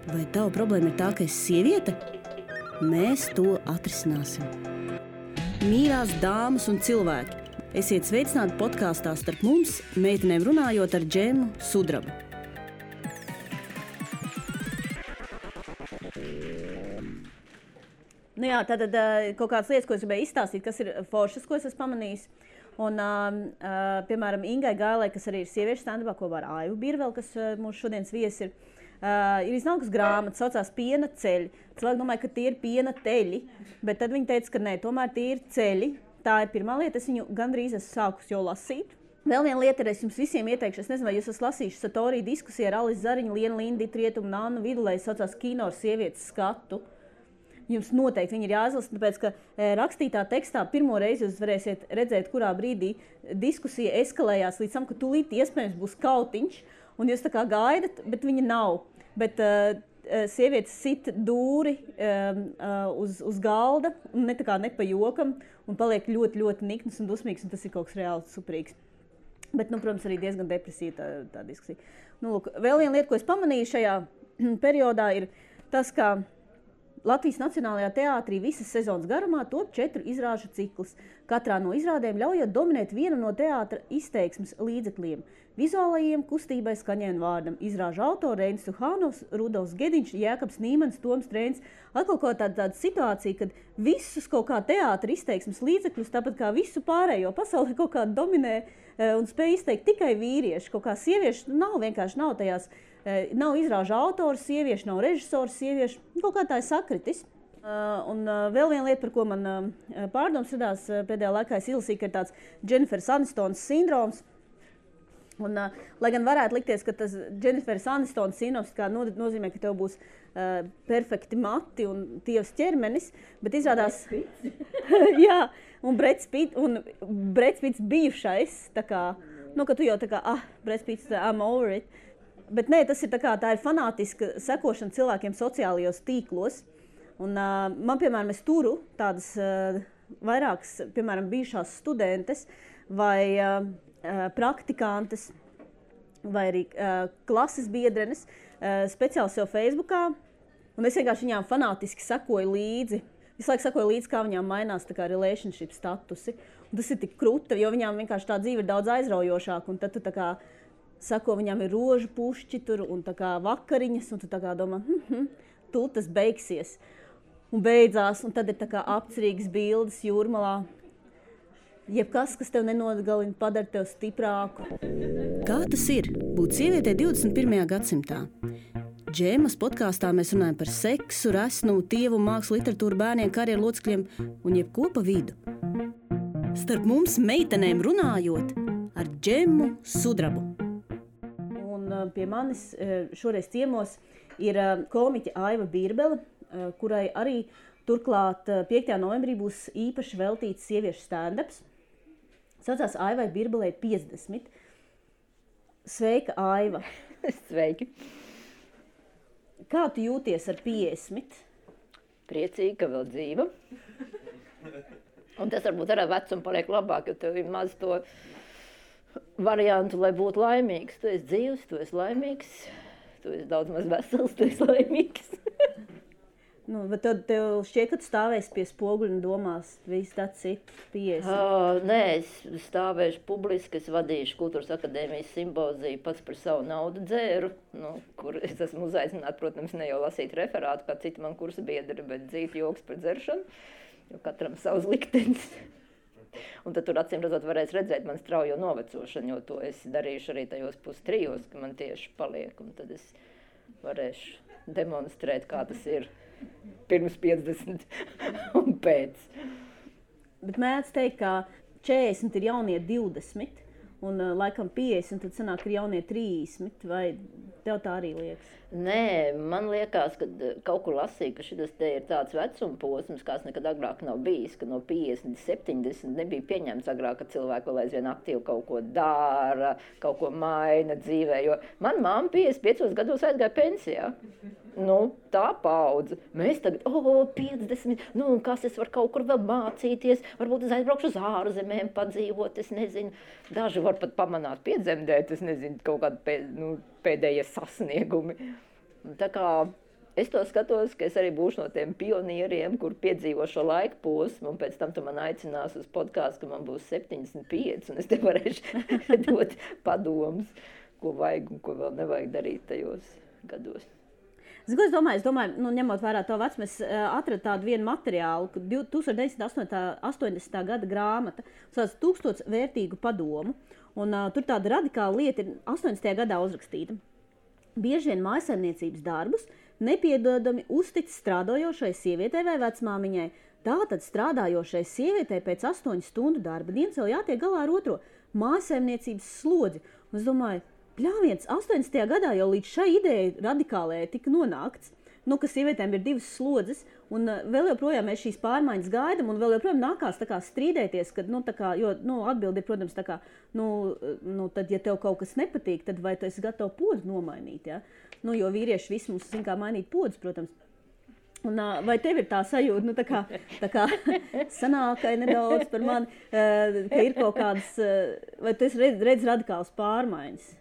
Vai tava problēma ir tā, ka esi sieviete? Mēs to atrisināsim. Mīļās dāmas un cilvēki, esiet sveicināti podkāstā Starp mums, meitenēm runājot ar Džemu Sudrabu. Nu jā, tātad kaut kādas lietas, ko es gribēju izstāstīt, kas ir foršas, ko es esmu pamanījis. Un, piemēram, Ingai Gailai, kas arī ir sieviešu stand-upā kopā ar Aivu Birveli, kas mūsu šodienas viesi ir iznākusi grāmata, saucās Piena ceļi. Cilvēki domāja, ka tie ir piena teļi, bet tad viņi teica, ka nē, tomēr tie ir ceļi. Tā ir pirmā lieta, es viņu gandrīz esmu sākus jau lasīt. Vēl viena lieta ir, es jums visiem ieteikšu, es nezinu, vai jūs esat lasījuši Satorī diskusiju ar Alisu Zariņu, Lienu Lindītu, Rietumu, Nannu Vidulēju, saucās Kino ar sievietes skatu. Jums noteikti viņi ir jāizlasa, tāpēc, ka rakstītā tekstā pirmo reizi jūs varēsiet redzēt, kurā brīdī diskusija eskalējās līdz tam, ka tūlīt iespējams būs kautiņš, un jūs tā kā gaidat, bet viņa nav. Bet sievietes sit dūri uz galda, un ne pa jokam, un paliek ļoti, ļoti nikns un dusmīgs, un tas ir kaut kas reāli superīgs. Bet, protams, arī diezgan depresīva tā diskusija. Lūk, vēl viena lieta, ko es pamanīju šajā periodā, ir tas, ka Latvijas Nacionālajā teātrī visas sezonas garumā top 4 izrāžu cikls. Katrā no izrādēm ļaujot dominēt vienu no teātra izteiksmes līdzekļiem – vizuālajiem, kustībai, skaņai un vārdam. Izrāžu autori Reinis Suhānovs, Rudolfs Gediņš, Jēkabs Nīmans, Toms Trēns. Atkal kaut tāda situācija, kad visus kaut kā teātra izteiksmes līdzekļus, tāpat kā visu pārējo pasauli kaut kā dominē un spēj izteikt tikai vīrieši. Kaut kā sievieši vienkārši nav tajās. Nav izrāžu autoru sieviešu, nav režisoru sieviešu, kaut kā tā ir sakritis. Un vēl viena lieta, par ko man pārdoms radās pēdējā laikā, es izlasīju, ka ir tāds Dženiferas Anistonas sindroms. Un, lai gan varētu likties, ka tas Dženiferas Anistonas sindroms nozīmē, ka tev būs perfekti mati un tievs ķermenis, bet izrādās... Jā, un Breds Pitts bijušais, tā kā, ka tu jau tā kā, Breds Pitts, I'm over it. Bet nē, tas ir tā ir fanātiska sekošana cilvēkiem sociālajos tīklos. Un man, piemēram, es turu tādas vairākas, piemēram, bijušās studentes vai praktikantes vai arī klases biedrenes speciāli sev Facebookā. Un es vienkārši viņām fanātiski sekoju līdzi. Visu laiku sekoju līdzi, kā viņām mainās tā kā relationship statusi. Un tas ir tik kruta, jo viņām vienkārši tā dzīve ir daudz aizraujošāka. Un tad tu tā kā sako, viņām ir rožu pušķi tur un tā kā vakariņas, un tu tā kā domā, tūlīt tas beigsies. Un beidzās, un tad ir tā kā apcerīgas bildes jūrmalā. Jebkas, kas tev nenogalina, padara tev stiprāku. Kā tas ir būt sievietei 21. gadsimtā? Džēmas podkāstā mēs runājam par seksu, resnumu, tievu, mākslu, literatūru, bērniem, karjeru locekļiem un jebko pa vidu. Starp mums meitenēm runājot ar Džemu Sudrabu. Pie manis šoreiz ciemos ir komiķe Aiva Birbele, kurai arī turklāt 5. novembrī būs īpaši veltīts sieviešu stand-ups. Saucās Aivai Birbelei 50. Sveika, Aiva! Sveiki! Kā tu jūties ar 50? Priecīgi, ka vēl dzīva. Un tas varbūt ar vecumu paliek labāk, jo tev ir maz to variantu, lai būtu laimīgs. Tu esi dzīvs, tu esi laimīgs, tu esi daudz maz vesels, tu esi laimīgs. Bet tev šķiet, ka tu stāvēsi pie spoguļa un domās, viss tāds ir 50. Nē, es stāvēšu publiski, es vadīšu Kultūras akadēmijas simboziju, pats par savu naudu dzēru, kur es esmu uzaicināta, protams, ne jau lasīt referātu, kā citi man kursa biedri, bet dzīt joks par dzeršanu, jo katram savs liktenis. Un tad tur acīm redzot varēs redzēt man straujo novecošanu, jo to es darīšu arī tajos 2-3, ka man tieši paliek. Un tad es varēšu demonstrēt, kā tas ir pirms 50 un pēc. Bet mēdz teikt, ka 40 ir jaunie 20, un laikam 50, tad sanāk ir jaunie 30, vai tev tā arī liekas? Nē, man liekas, ka kaut kur lasīju, ka šis te ir tāds vecuma posms, kāds nekad agrāk nav bijis, ka no 50, 70 nebija pieņemts agrāk, ka cilvēki vēl aizvien aktīvi kaut ko dara, kaut ko maina dzīvē, jo man mamma 55 gados aizgāja pensijā. Tā paudze. Mēs tagad, 50, kas es varu kaut kur vēl mācīties, varbūt es aizbraukšu uz ārzemēm padzīvot, es nezinu, daži var pat pamanāt piedzemdēt, es nezinu, kaut kādi pēdējie sasniegumi. Tā kā es to skatos, ka es arī būšu no tiem pionieriem, kur piedzīvo šo laika posmu, un pēc tam tu man aicinās uz podkāstu, ka man būs 75, un es te varēšu dot padomus, ko vajag un ko vēl nevajag darīt tajos gados. Es domāju, ņemot vērā to vecumu, es atradu tādu vienu materiālu, 1980. gada grāmata, sauc 1000 vērtīgu padomu, un tur tāda radikāla lieta ir 80. gadā uzrakstīta. Bieži vien mājsaimniecības darbus nepiedodami uztic strādājošai sievietei vai vecmāmiņai. Tātad strādājošai sievietei pēc 8 stundu darba dienas vēl jātiek galā ar otro mājsaimniecības slodzi. Un es domāju, bļāviens, 80. gadā jau līdz šai ideja radikālajai tika nonākts, ka sievietēm ir 2 slodzes, un vēl joprojām mēs šīs pārmaiņas gaidam, un vēl joprojām nākās strīdēties, kad, jo atbildi ir, protams, tad, ja tev kaut kas nepatīk, tad vai tu esi gatava podu nomainīt, ja? Jo vīrieši visi mums zin kā mainīt podus, protams. Un, vai tev ir tā sajūta, tā kā sanākai nedaudz par mani, ka ir kaut kādas, vai tu esi redz radikālas pārmaiņas?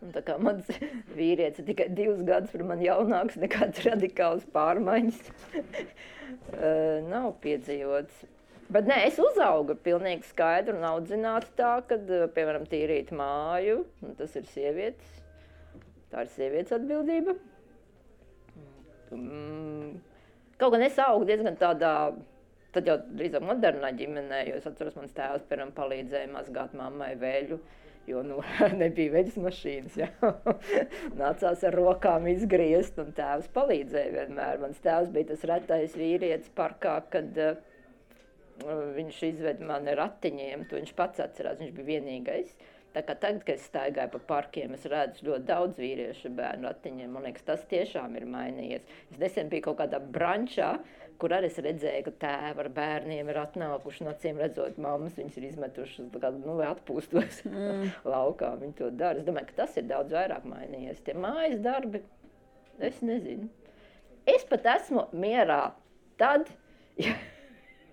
Un tā kā mans vīrietis ir tikai 2 gadus par mani jaunāks, nekāds radikāls pārmaiņas nav piedzīvots. Bet nē, es uzaugu pilnīgi skaidru un audzinātu tā, kad, piemēram, tīrīt māju, un tas ir sievietes. Tā ir sievietes atbildība. Kaut gan es augu diezgan tādā, tad jau drīzāk modernā ģimenē, jo es atceros, mans tēvs, piemēram, palīdzēja mazgāt mammai veļu. Jo nebija veļas mašīnas, ja? Nācās ar rokām izgriezt, un tēvs palīdzēja vienmēr. Mans tēvs bija tas retais vīrietis parkā, kad viņš izveda mani ratiņiem, to viņš pats atcerās, viņš bija vienīgais. Tā kā tagad, kad es staigāju pa parkiem, es redzu ļoti daudz vīriešu bērnu ratiņiem, man liekas, tas tiešām ir mainījies. Es nesen biju kaut kādā brančā, kur arī es redzēju, ka tēvi ar bērniem ir atnākuši, un acīm redzot, mammas viņas ir izmetušas, vai atpūstos laukā, viņi to dara. Es domāju, ka tas ir daudz vairāk mainījies. Tie mājas darbi, es nezinu. Es pat esmu mierā tad, ja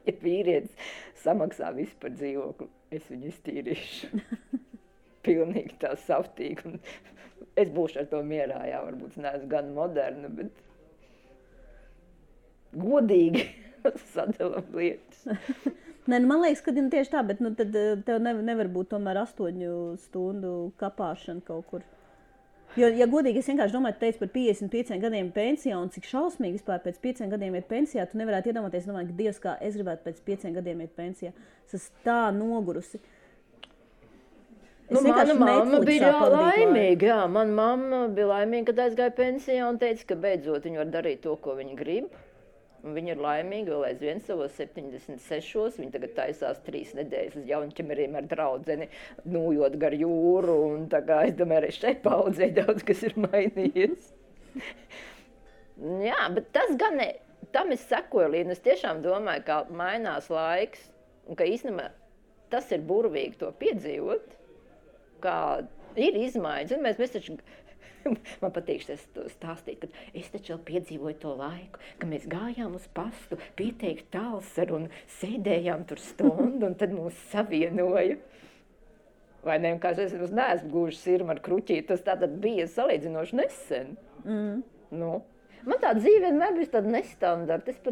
vīrietis samaksā visu par dzīvokli, es viņu iztīrīšu. Pilnīgi tā savtīgi. Un es būšu ar to mierā, jā, varbūt neesmu gan moderna, bet godīgi sadalam lietas. Nē, man liekas, ka tieši tā, bet tad tev nevar būt tomēr 8 stundu kapāšana kaut kur. Jo, ja godīgi, es vienkārši domāju, tu teici par 55 gadiem pensijā, un cik šausmīgi vispār pēc 5 gadiem iet pensijā, tu nevarētu iedomāties, domāju, ka Dievs, kā es gribētu pēc 5 gadiem iet pensijā. Es esmu tā nogurusi. Mana mamma bija laimīga, jā. Mana mamma bija laimīga, kad aizgāja pensijā un teica, ka beidzot viņa var darīt to, ko viņa grib. Un viņa ir laimīga vēl aizvien savos 76. Viņa tagad taisās 3 nedēļas uz Jaunķemeriem ar draudzeni, nūjot gar jūru. Un tā kā es domāju, arī šeit paudzē daudz, kas ir mainījies. Jā, bet tas gan ne, tam es sekoju līdzi. Es tiešām domāju, ka mainās laiks un ka īstenībā tas ir burvīgi to piedzīvot, kā ir izmaiņas. Mēs taču... Man patīk to stāstīt, ka es taču vēl piedzīvoju to laiku, ka mēs gājām uz pastu, pieteikt tālsaru un sēdējām tur stundu, un tad mūs savienoja. Vai ne? Kā es neesmu gluži sirma ar kruķīti, tas tātad bija salīdzinoši nesen. Nu, man tā dzīve vienmēr bija tāda nestandarta.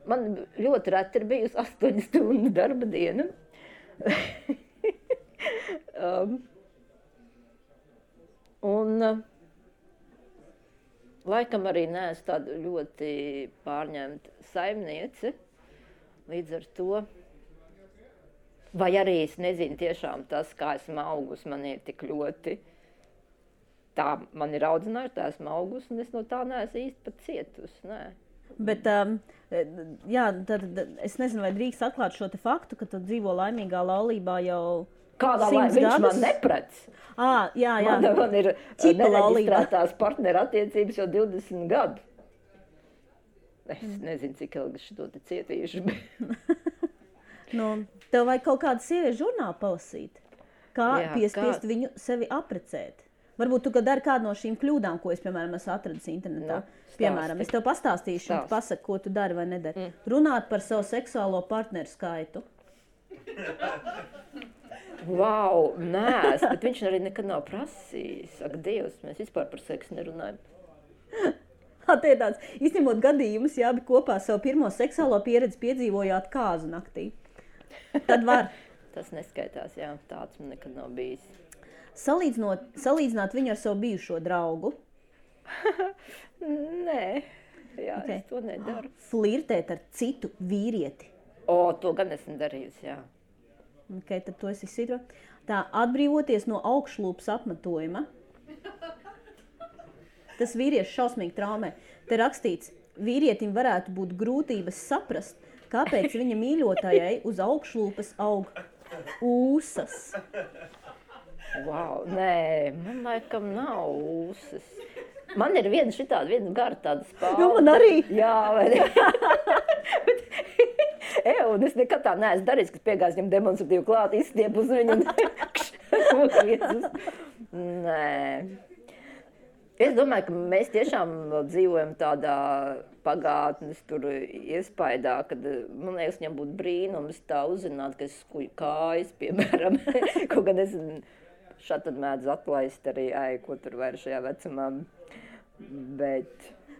Man ļoti reti ir bijusi 8 stundu darba diena. Un laikam arī neesmu tāda ļoti pārņemta saimniece, līdz ar to. Vai arī es nezinu tiešām tas, kā esmu augus, man ir tik ļoti. Tā man ir audzinājuši, tā esmu augus, un es no tā neesmu īsti pat cietusi, nē. Bet, jā, tad es nezinu, vai drīkst atklāt šo te faktu, ka tu dzīvo laimīgā laulībā jau... Kādā laimā viņš man neprec? Jā. Man ir nereģistrētās partneru attiecības jau 20 gadu. Es nezinu, cik ilgi šo te cietīšu. Tev vajag kaut kādu sieviešu žurnālu palasīt. Kā piespiest viņu sevi aprecēt. Varbūt tu dari kādu no šīm kļūdām, ko es, piemēram, esmu atradis internetā. Piemēram, es tev pastāstīšu, un tu pasaki, ko tu dari vai nedari. Runāt par savu seksuālo partneru skaitu. Vau, nē, bet viņš arī nekad nav prasījis. Ak, Dievs, mēs vispār par seksu nerunājam. Tie tāds, izņemot gadījumus, ja abi kopā savu pirmo seksuālo pieredzi piedzīvojāt kāzu naktī. Tad var. Tas neskaitās, jā, tāds man nekad nav bijis. Salīdzināt viņu ar savu bijušo draugu. Nē, jā, es to nedaru. Flirtēt ar citu vīrieti. To gan esmu darījusi, jā. Tad to es izsītru. Tā, atbrīvoties no augšlūpas apmetojuma. Tas vīrieši šausmīgi traumē. Te rakstīts, vīrietim varētu būt grūtības saprast, kāpēc viņa mīļotājai uz augšlūpas aug ūsas. Wow, nē, man laikam nav ūsas. Man ir viena gara tāda spāle. Jo, man arī. Jā, vai ne? Un es nekad tā neesmu darījis, kad piegājas viņam demonstratīvi klāt, izstiep uz viņu un Nē. Es domāju, ka mēs tiešām dzīvojam tādā pagātnes tur iespaidā, kad, man liekas, viņam būtu brīnums tā uzzināt, ka es skuju kājas, piemēram, kaut gan es šādi tad mēdz atlaist arī, ko tur vairs šajā vecumā,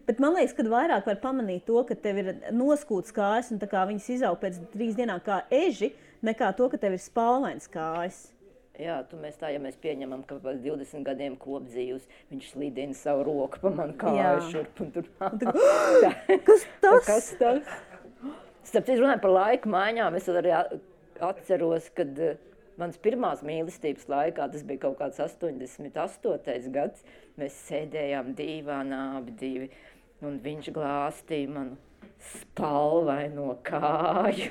Bet man liekas, ka vairāk var pamanīt to, ka tev ir noskūts kājas un tā kā viņas izaug pēc 3 dienām kā eži, nekā to, ka tev ir spalvains kājas. Jā, ja mēs pieņemam, ka pēc 20 gadiem kopdzīvus viņš slīdina savu roku pa manu kāju šurp un tur. Kas tas? Kas tas? Starp citu runāju par laika maiņām, es arī atceros, kad mans pirmās mīlestības laikā, tas bija kaut kāds 88. gads, mēs sēdējām dīvānā abi divi, un viņš glāstīja manu spalvaino kāju.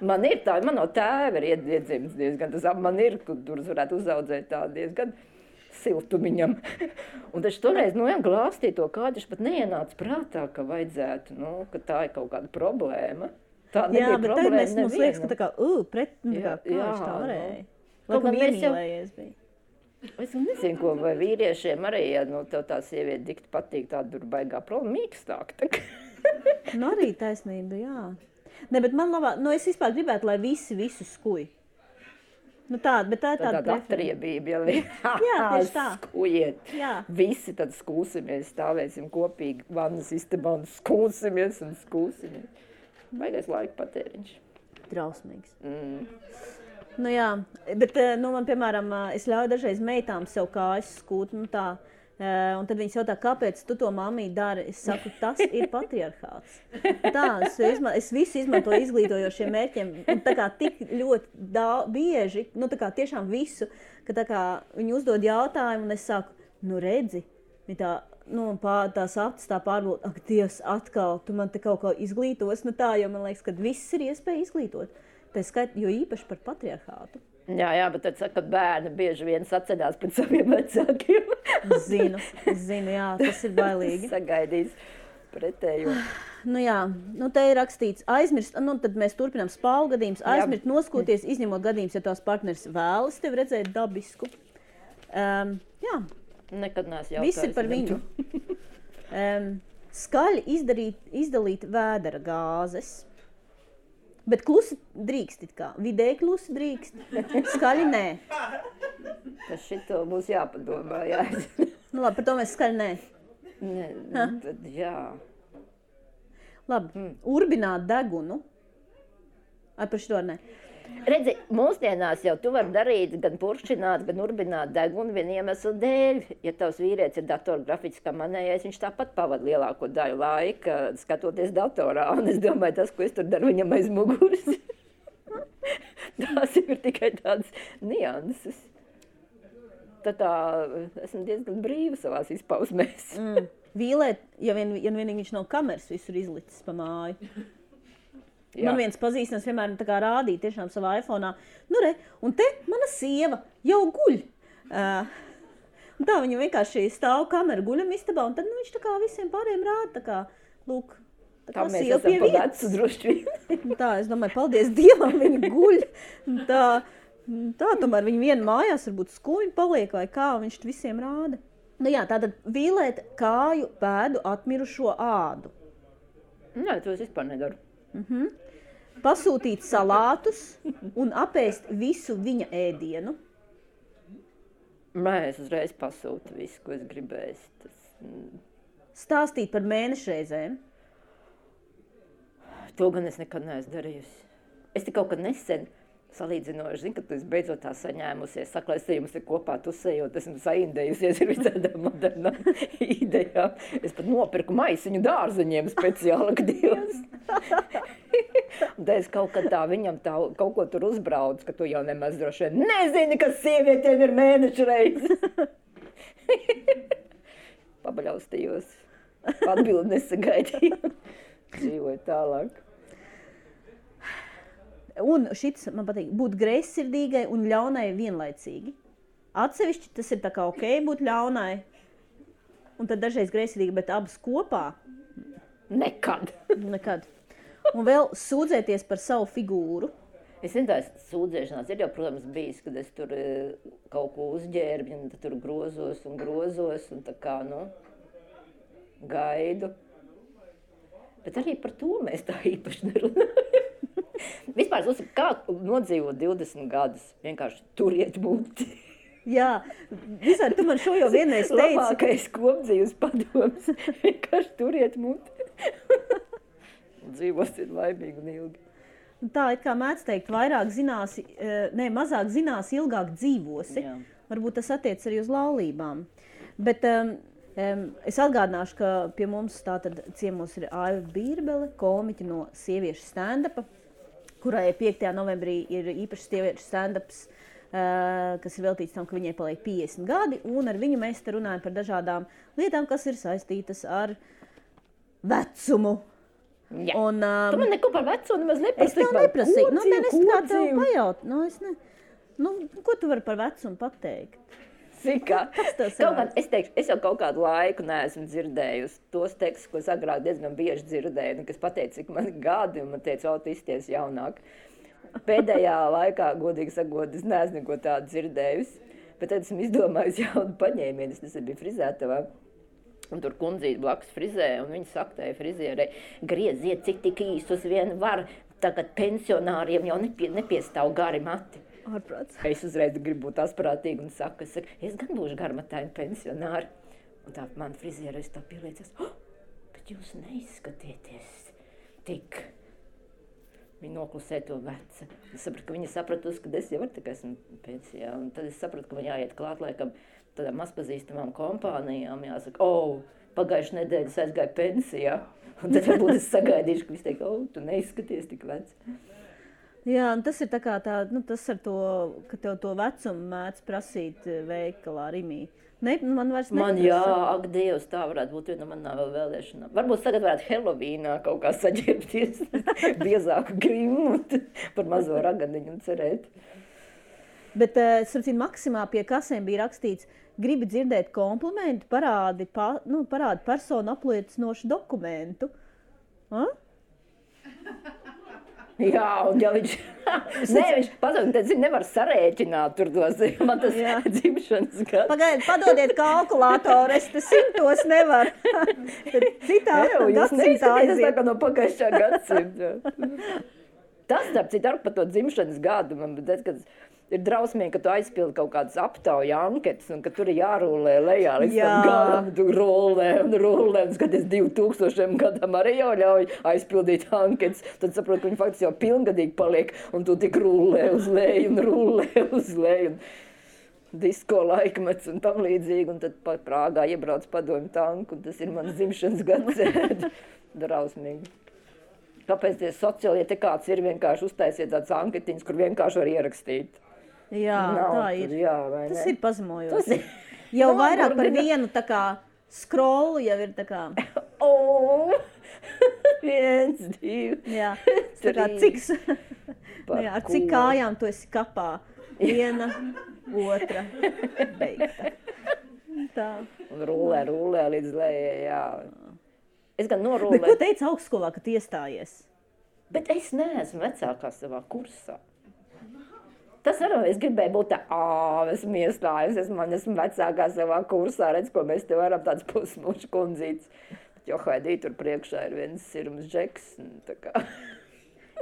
Man ir tā, man no tēva ir iedzimts diezgan, tas man ir, kur varētu uzaudzēt tā diezgan siltumiņam. Un taču toreiz, glāstīja to kāju, taču pat neienāca prātā, ka vajadzētu, ka tā ir kaut kāda problēma. Tā nebija problēma nevienam. Mums liekas, ka tā kā, kāds tā varēja. Laikam iemīlējies bija. Es nezinu, ko, vai vīriešiem arī, ja tev tā sieviete dikti patīk, tā tur baigā problēma mīkstāk. Arī taisnība, jā. Ne, bet man labāk, es vispār gribētu, lai visi visu skuj. Bet tā ir tāda atriebība, jā, tieši tā. Skujiet. Jā. Visi tad skūsimies, stāvēsim kopīgi vannas istabā un skūsimies. Baigais laika patēriņš. Drausmīgs. Jā, bet man, piemēram, es ļauju dažreiz meitām sev kājas skūt, tā. Un tad viņas jautā, kāpēc tu to mammī dari? Es saku, tas ir patriarchāts. Es visu izmantoju izglītojošiem mērķiem. Un tā kā tik ļoti bieži, tā kā tiešām visu, ka tā kā viņi uzdod jautājumu, un es saku, redzi, tā, tās acis tā pārbūt, ak, Dievs, atkal, tu man te kaut ko izglītos, jo man liekas, ka viss ir iespēja izglītot. Tā skait, jo īpaši par patriarchātu. Jā, bet tad saka, ka bērni bieži vien saceļās pēc saviem vecākiem. Zinu, jā, tas ir bailīgi. Sagaidīs pretējo. Te ir rakstīts, aizmirst, tad mēs turpinām spālu gadījumus, aizmirst noskūties, izņemot gadījumus, ja tās partneris vēlas tevi redzēt dabisku. Jā. Nekad neesmu jautājis. Viss ir par viņu. Skaļi izdalīt vēdera gāzes. Bet klusi drīkst it kā. Vidēji klusi drīkst. Skaļi nē. Tas šito būs jāpadomā, jā. Labi, par to mēs skaļi nē. Tad jā. Labi, urbināt degunu. Par šito nē. Redzi, mūsdienās jau tu vari darīt gan puršķināt, gan urbināt degunu vienu iemeslu dēļ. Ja tavs vīrietis ir datorgrafiķis kā manējais, viņš tāpat pavada lielāko daļu laika skatoties datorā. Un es domāju, tas, ko es tur daru viņam aiz muguras, tās ir tikai tādas nianses. Tad esmu diezgan brīva savās izpausmēs. Vīlēt, ja vienīgi viņš nav kameras visur izlicis pa māju. Jā. Man viens pazīstams vienmēr tā kā rādīja tiešām savā iPhone'ā. Un te mana sieva jau guļ. Un tā viņa vienkārši stāv kameru guļam istabā, un tad viņš tā kā visiem pārējiem rāda, tā kā, lūk, tā mēs esam pa vecu droši vien. Tā, es domāju, paldies Dievam, viņa guļ. Tā tomēr viņa viena mājās varbūt skuņi paliek vai kā, viņš visiem rāda. Tātad vīlēt kāju pēdu atmirušo ādu. Nē, to es vispār nedaru. Pasūtīt salātus un apēst visu viņa ēdienu. Nē, es uzreiz pasūtu visu, ko es gribēju. stāstīt par mēnešreizēm? To gan es nekad neesmu darījusi. Es te kaut kad nesen salīdzinoši, zinu, ka tu esi beidzot tā saņēmusies, saka, lai es jums ir kopā tusējot, esmu saindējusies ar visādām modernām idejām. Es pat nopirku maisiņu dārzeņiem speciāli, ka Dievs. Un tā es kaut kad tā viņam tā, kaut ko tur uzbraucu, ka tu jau nemaz droši vien nezini, kas sievietēm ir mēnešreiz. Pabaļaustījos. Atbildi nesagaidīju. Dzīvoju tālāk. Un šis man patīk, būt greizsirdīgai un ļaunai vienlaicīgi. Atsevišķi tas ir tā kā ok būt ļaunai, un tad dažreiz greizsirdīgi, bet abas kopā? Nekad. Nekad. Un vēl sūdzēties par savu figūru. Es nezinu, tās sūdzēšanās ir jau, protams, bijis, kad es tur kaut ko uzģērbu, un tad tur grozos, un tā kā, gaidu. Bet arī par to mēs tā īpaši nerunājam. Vispār, kā nodzīvot 20 gadus, vienkārši turiet muti. Jā, visādi tu man šo jau vienreiz teici. Labākais kopdzīves padoms, vienkārši turiet muti. Dzīvosit laimīgi un ilgi. Tā, it kā mēdz teikt, mazāk zinās, ilgāk dzīvosi. Jā. Varbūt tas attiec arī uz laulībām. Bet es atgādināšu, ka pie mums tātad ciemos ir Aiva Bīrbele, komiķa no sieviešu stand-upa, kurai 5. novembrī ir īpašs sieviešu stand-ups, kas ir veltīts tam, ka viņai paliek 50 gadi, un ar viņu mēs te runājam par dažādām lietām, kas ir saistītas ar vecumu. Jā. Un, tu man neko par vecumu nemaz neprasīji. Es tev neprasīju. Es kā tev pajaut. Ko tu vari par vecumu pateikt? Es teikšu, es jau kaut kādu laiku neesmu dzirdējusi tos tekstus, ko es agrāk diezgan bieži dzirdēju, kas pateica, cik man gadi, un man teica, tu izties jaunāk. Pēdējā laikā, godīgi sakot, es neesmu neko tādu dzirdējusi, bet tad esmu izdomājusi jaunu paņēmienu. Es biju frizētavā, un tur kundzīte blakus frizē, un viņa saka tai frizierei, grieziet, cik tik īstus vien var, tagad pensionāriem jau nepiestāv gari mati. Ārprāts. Es uzreiz gribu būt asprātīgi un saku, es gan būšu garmataini pensionāri. Un tā man frizieris tā pieliecas, bet jūs neizskatieties tik. Viņa noklusē to veca. Es sapratu, ka viņa sapratusi, ka es jau esmu pensijā. Un tad es sapratu, ka man jāiet klāt laikam tādām mazpazīstamām kompānijām. Jāsaka, pagājušajā nedēļā es aizgāju pensijā. Un tad varbūt es sagaidīšu, ka viņš teiks, tu neizskaties tik vecs. Jā, un tas ir tā kā tas ar to, ka tev to vecumu mēdz prasīt veikalā Rimī. Man vairs neprasa. Man ak, Dievs, tā varētu būt viena no manām vēl vēlēšanām. Varbūt tagad varētu Helovīnā kaut kā saģērbties biezāku grimu par mazo raganiņu un cerēt. Bet, sapcīt, Maksimā pie kasēm bija rakstīts, gribi dzirdēt komplimentu, parādi personu apliecinošu dokumentu. Jā, un ja viņš pasaka, tad nevar sarēķināt tur tos, man tas dzimšanas gads. Pagaidiet, padodiet kalkulātoru, es te 100 nevaru. Citā gadsimtā aiziet. Tas tā kā no pagājušā gadsimta. Tas, starp citu, ar par to dzimšanas gadu, man teica, ka ir drausmīgi, ka tu aizpildi kaut kādas aptauja anketas un ka tur ir jārūlē lejā līdz tam galam, tu rūlē, un skaties 2000 gadam arī jau ļauj aizpildīt anketas. Tad saprot, ka viņi faktiski jau pilngadīgi paliek un tu tik rūlē uz leju un rūlē uz leju. Disko laikmets un tam līdzīgi, un tad pat Prāgā iebrauc padomju tanku, un tas ir mans dzimšanas gads. Drausmīgi. Kāpēc tie sociālie te kāds ir vienkārši uztaisiet tāds anketiņas, kur vienkārši var ierakstīt? Jā, tā ir. Tas ir pazemojoši. Tas jau vairāk par vienu tā kā scrollu jau ir tā kā. 1, 2, jā, tā kā ar cik kājām tu esi kapā. 1, 2, beigta. Tā. Un rūlē līdz lejai, jā. Es gan norūlēju. Bet ko teica augstskolā, kad iestājies? Bet es neesmu vecākā savā kursā. Tas arī es gribēju būt tā, esmu iestājusi, esmu vecākā savā kursā, redz, ko mēs te varam tāds pusmuši kundzītes. Bet jo Haidī tur priekšā ir viens sirums džeks. Tā kā.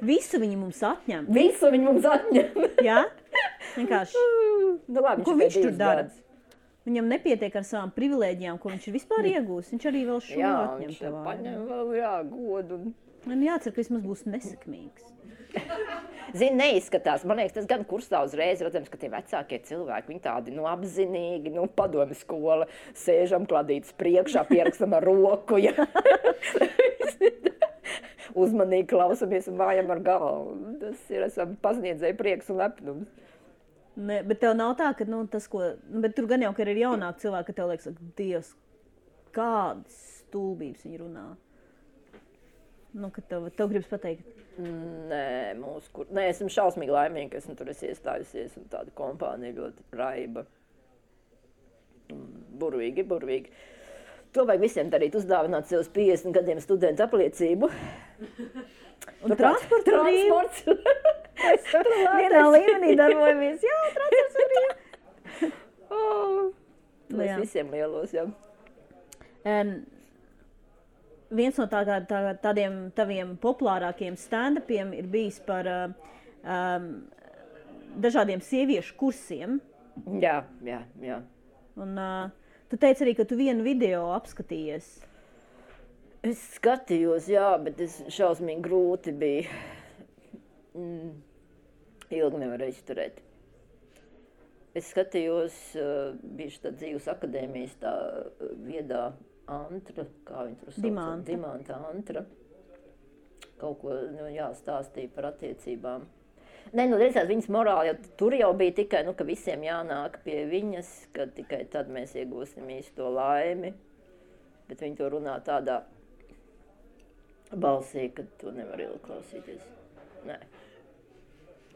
Visu viņi mums atņem. Visu viņi mums atņem. Jā? Vienkārši. Nu labi, ko viņš tur dara? Viņam nepietiek ar savām privilēģijām, ko viņš ir vispār iegūs. Viņš arī vēl šo atņem viņš paņem vēl, godu. Man jācer, ka vismaz būs nesekmīgs. Zini, neizskatās. Man liekas, tas gan kursā uzreiz, redzams, ka tie vecākie cilvēki, viņi tādi, apzinīgi, padomi skola, sēžam kladītas priekšā, pierakstam ar roku, ja. Uzmanīgi klausamies un vājam ar galvu. Tas ir, esam pasniedzēji prieks un lepnums. Ne, bet tev nav tā, ka, tas, ko, bet tur gan jau, ka ir jaunāki cilvēki, ka tev liekas, Dievs, kādas stulbības viņi runā. Ka tev gribas pateikt. Nē, esmu šausmīgi laimīgi, ka esmu tur iestājusies un tāda kompānija ļoti raiba. Burvīgi. To vajag visiem darīt, uzdāvināt sev uz 50 gadiem studentu apliecību. Un transports. Vienā līmenī darbojamies. Jā, transports ir brīv. Mēs visiem lielos, jā. Viens no tādiem taviem populārākiem stand-upiem ir bijis par dažādiem sieviešu kursiem. Jā. Un tu teici arī, ka tu vienu video apskatījies. Es skatījos, jā, bet šausmīgi grūti bija. Ilgi nevarēju izturēt. Es skatījos, bija tā dzīves akadēmijas tā viedā Antra, kā viņi tur sauc? Dimanta Antra. Kaut ko jāstāstīja par attiecībām. Redzēt, viņas morāli, tur jau bija tikai, ka visiem jānāk pie viņas, ka tikai tad mēs iegūsim īsto laimi. Bet viņi to runā tādā balsī, ka to nevar ilgi klausīties. Nē.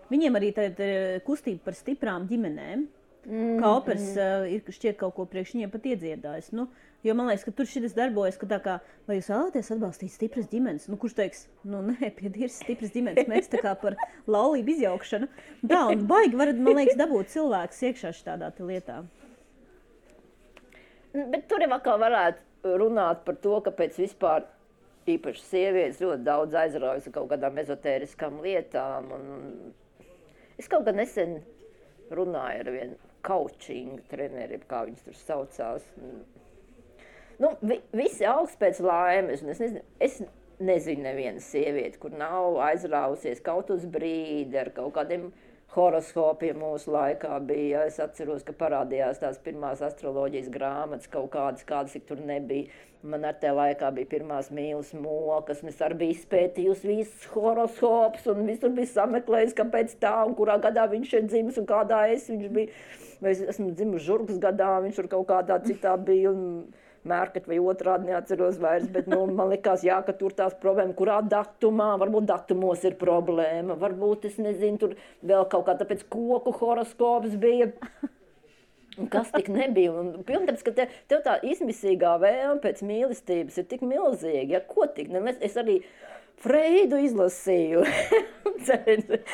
Viņiem arī tad ir kustība par stiprām ģimenēm. Kā operas ir šķiet kaut ko priekš viņiem pat iedziedājis. Jo man liekas, ka tur šitas darbojas, ka tā kā, vai jūs vēlaties atbalstīt stipras ģimenes? Kurš teiks, nē, piedīrs stipras ģimenes, mēs tā kā par laulību izjaukšanu. Tā, un baigi varat, man liekas, dabūt cilvēkus iekšā šādā lietā. Bet tur jau atkal varētu runāt par to, kāpēc vispār īpaši sievietes ļoti daudz aizraujas ar kaut kādām ezotēriskām lietām. Es kaut kad nesen runāju ar vienu coaching treneri, kā viņas tur saucās. Visi augst pēc laimes. Es nezinu nevienu sievieti, kur nav aizrāvusies kaut uz brīdi ar kaut kādiem horoskopiem mūsu laikā bija. Es atceros, ka parādījās tās pirmās astroloģijas grāmatas, kaut kādas ik tur nebija. Man ar tajā laikā bija pirmās mīlas mokas, un es arī biju izpētījusi visus horoskopus, un visur bija sameklējis, kāpēc tā, un kurā gadā viņš ir dzimis, un kādā viņš bija. Es esmu dzimis Žurgas gadā, viņš tur kaut kādā citā bija, un Mērkat vai otrādi neatceros vairs, bet man likās, jā, ka tur tās problēma, kurā datumā, varbūt datumos ir problēma, varbūt, es nezinu, tur vēl kaut kā tāpēc koku horoskops bija. Un kas tik nebija? Pilnības, ka tev tā izmisīgā vēlme pēc mīlestības ir tik milzīga, ja ko tik? Es arī Freidu izlasīju,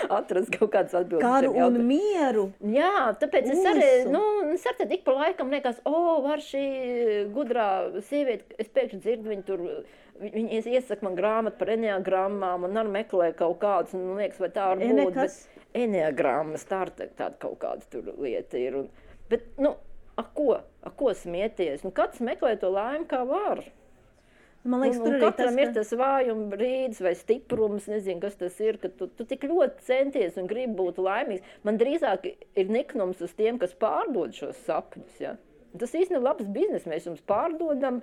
atrast kaut kādas atbildes. Karu un mieru. Jā, tāpēc es arī tik pa laikam liekas, var šī gudrā sieviete, es pēkšņi dzirdu, viņi iesaka man grāmatu par eneagrammām un arī meklē kaut kādus, un liekas, vai tā var būt, bet eneagrammas, tāda kaut kāda tur lieta ir. Bet, ko smieties? Katrs meklē to laimi, kā var. Man liekas, tur katram ir tas vājuma brīdis vai stiprums, nezinu, kas tas ir, ka tu tik ļoti centies un gribi būt laimīgs. Man drīzāk ir niknums uz tiem, kas pārdod šos sapņus. Ja? Tas īsti ir labs biznes, mēs jums pārdodam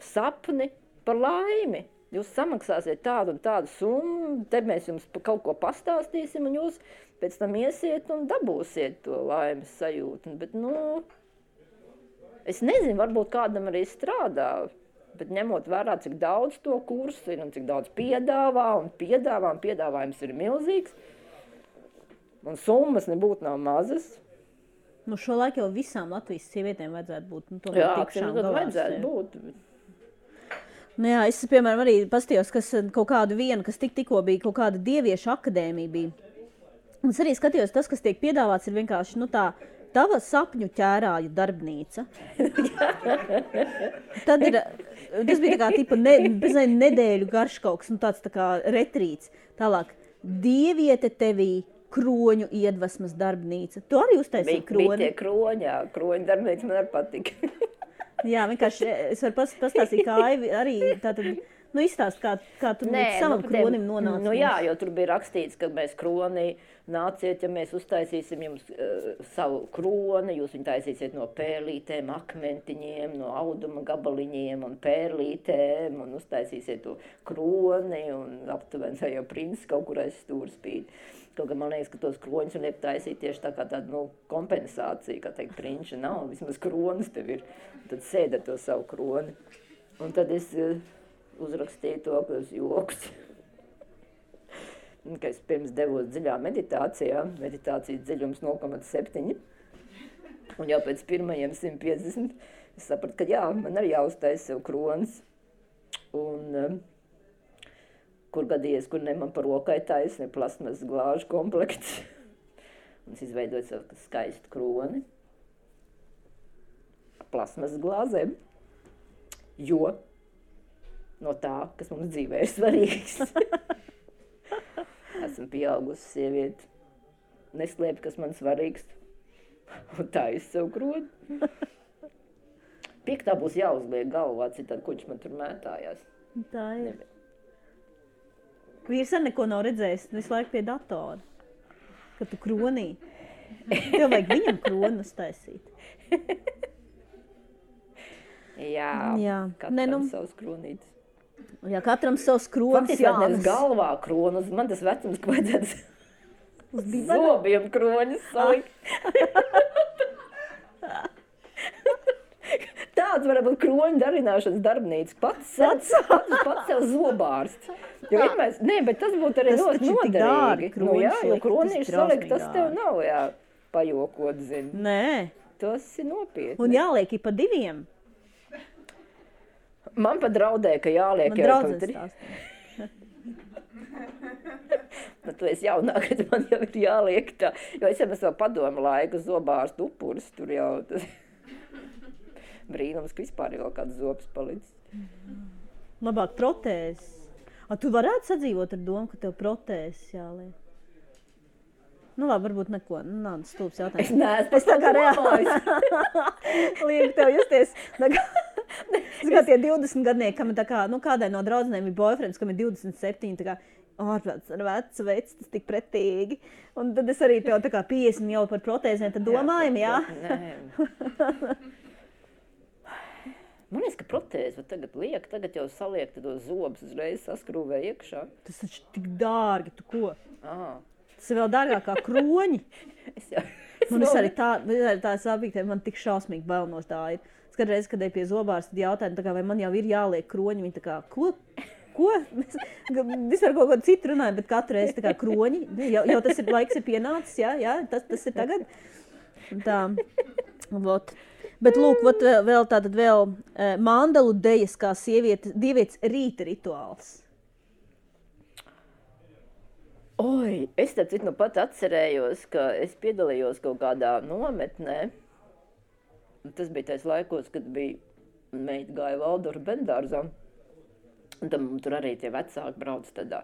sapni par laimi. Jūs samaksāsiet tādu un tādu summu, te mēs jums kaut ko pastāstīsim, un jūs pēc tam iesiet un dabūsiet to laimes sajūtu. Bet, es nezinu, varbūt kādam arī strādā. Bet ņemot vērā, cik daudz to kursu ir un cik daudz piedāvājums ir milzīgs, un summas nebūtu nav mazas. Šo laiku jau visām Latvijas sievietēm vajadzētu būt. Jā, vajadzētu būt. Jā, es, piemēram, arī paskatījos, kas kaut kādu vienu, kas tikko bija, kaut kāda dieviešu akadēmija bija. Un es arī skatījos, tas, kas tiek piedāvāts, ir vienkārši, tava sapņu ķērāju darbnīca. Tad tas bija tā kā tipa nedēļu garš kaut kas, tāds tā kā retrīts. Tālāk, dieviete tevī kroņu iedvesmas darbnīca. Tu arī uztaisīji kroni? Bija tie kroņi, jā, kroņu darbnīca man arī patika. Jā, vienkārši es varu pastāstīt, kā Aivi arī tātad, izstāst, kā tu savam kronim nonāci. Nu jā, jo tur bija rakstīts, ka mēs kroni nāciet, ja mēs uztaisīsim jums savu kroni, jūs viņu taisīsiet no pērlītēm, akmentiņiem, no auduma gabaliņiem un pērlītēm, un uztaisīsiet to kroni, un aptuveni tā jau princis kaut kur aiz stūra spīd. Kaut kā man liekas, ka tos kroņus un liek taisīt tieši tā kā tāda, kompensācija, kā teikt, prinča nav, vismaz kronis tev ir, tad sēd ar to savu kroni. Un tad es uzrakstīju to, ka es joks. Ka es pirms devos dziļā meditācijā, meditācijas dziļums 0,7, un jau pēc pirmajiem 150 es sapratu, ka jā, man arī jāuztaisa sev kronis, un kur gadījies, kur ne man par rokai taisa, ne plasmas glāžu komplekts, un es izveidoju savu skaistu kroni, plasmas glāzēm, jo no tā, kas mums dzīvē ir svarīgs. Esmu pieaugusi sievieti, neslēpju, kas man svarīgs, un tā es sev kroni. Piektā būs jāuzliek galvā, citādi kuģis man tur mētājās. Tā ir. Vīrs ar neko nav redzējis, visu laiku pie datora, kad tu kronī. Tev vajag viņam kronu uztaisīt. Jā, katram savs kronītis. Jā, katram savs kronis. Faktiski nevis galvā kronis, man tas vecums, ka vajadzētu zobiem kronis salikt. Tāds varētu būt kroņu darināšanas darbnīca. Pats sev zobārsts. Bet tas būtu arī ļoti noderīgi. Jo kronīši salikt, tas tev nav pajokot, zini. Nē. Tas ir nopietni. Un jāliek pa 2. Man pat draudēja, ka jāliek jau pa 3. Tu esi jaunāk, kad man jau ir jāliek tā. Jo es jau vēl padomu laiku zobārstu upuris, tur jau tas brīnums, ka vispār jau kāds zobs palicis. Labāk protēzes. Tu varētu sadzīvot ar domu, ka tev protēzes jāliek? Nu labi, varbūt neko. Nav stulbs jautājums. Es neesmu tā kā reāli. Liek tev justies. Zagā tie 20 gadnieki, kam ir tā kā, kādai no draudzenēm ir boyfriends, kam ir 27, tā kā, ārprāts ar vecu veids, tas tik pretīgi. Un tad es arī tev tā kā 50 jau par protēzēm, tad domājam, jā? Nē. Man liekas, ka protēzi tagad jau saliek tos zobus uzreiz saskrūvē iekšā. Tas taču tik dārgi, tu ko? Tas ir vēl dārgāk kā kroņi. Man arī tā sabīgtē, man tik šausmīgi bail no tā ir. Skatreiz, kad pie zobārsta jautāju, vai man jau ir jāliek kroņi, viņi tā kā, ko? Vispār kaut ko citu runāju, bet katru reizi tā kā kroņi. Jau tas ir laiks ir pienācis, jā, tas ir tagad. Tā, vot. Bet lūk, vēl mandalu dejas kā dievietes rīta rituāls. Oi, es tad pat atcerējos, ka es piedalījos kaut kādā nometnē. Tas bija tais laikos, kad bija meita gāja Valdora bendārzā. Un tam tur arī tie vecāki brauc tādā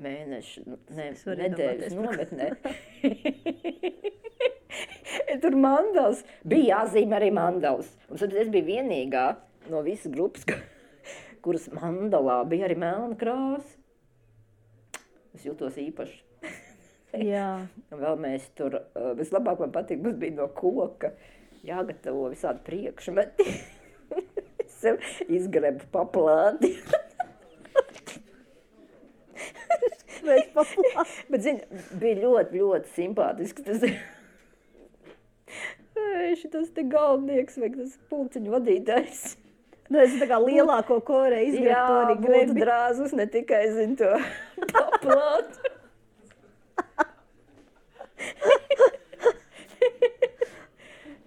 nedēļas nometnē. Tur mandals. Bija jāzīmē arī mandals. Un tad es biju vienīgā no visas grupas, kuras mandalā bija arī melna krāsa. Es jūtos īpaši. Jā. Vēl mēs tur, vislabāk man patīk, mums bija no koka jāgatavo visādi priekšmeti. Es sev izgrebu paplāti. Bet, zini, bija ļoti, ļoti simpātisks tas. Šitas te galvnieks vai tas pulciņu vadītājs. Es tā kā lielāko korē izgrebu to arī grebi. Jā, būtu drāzus, ne tikai, zini, to paplātu.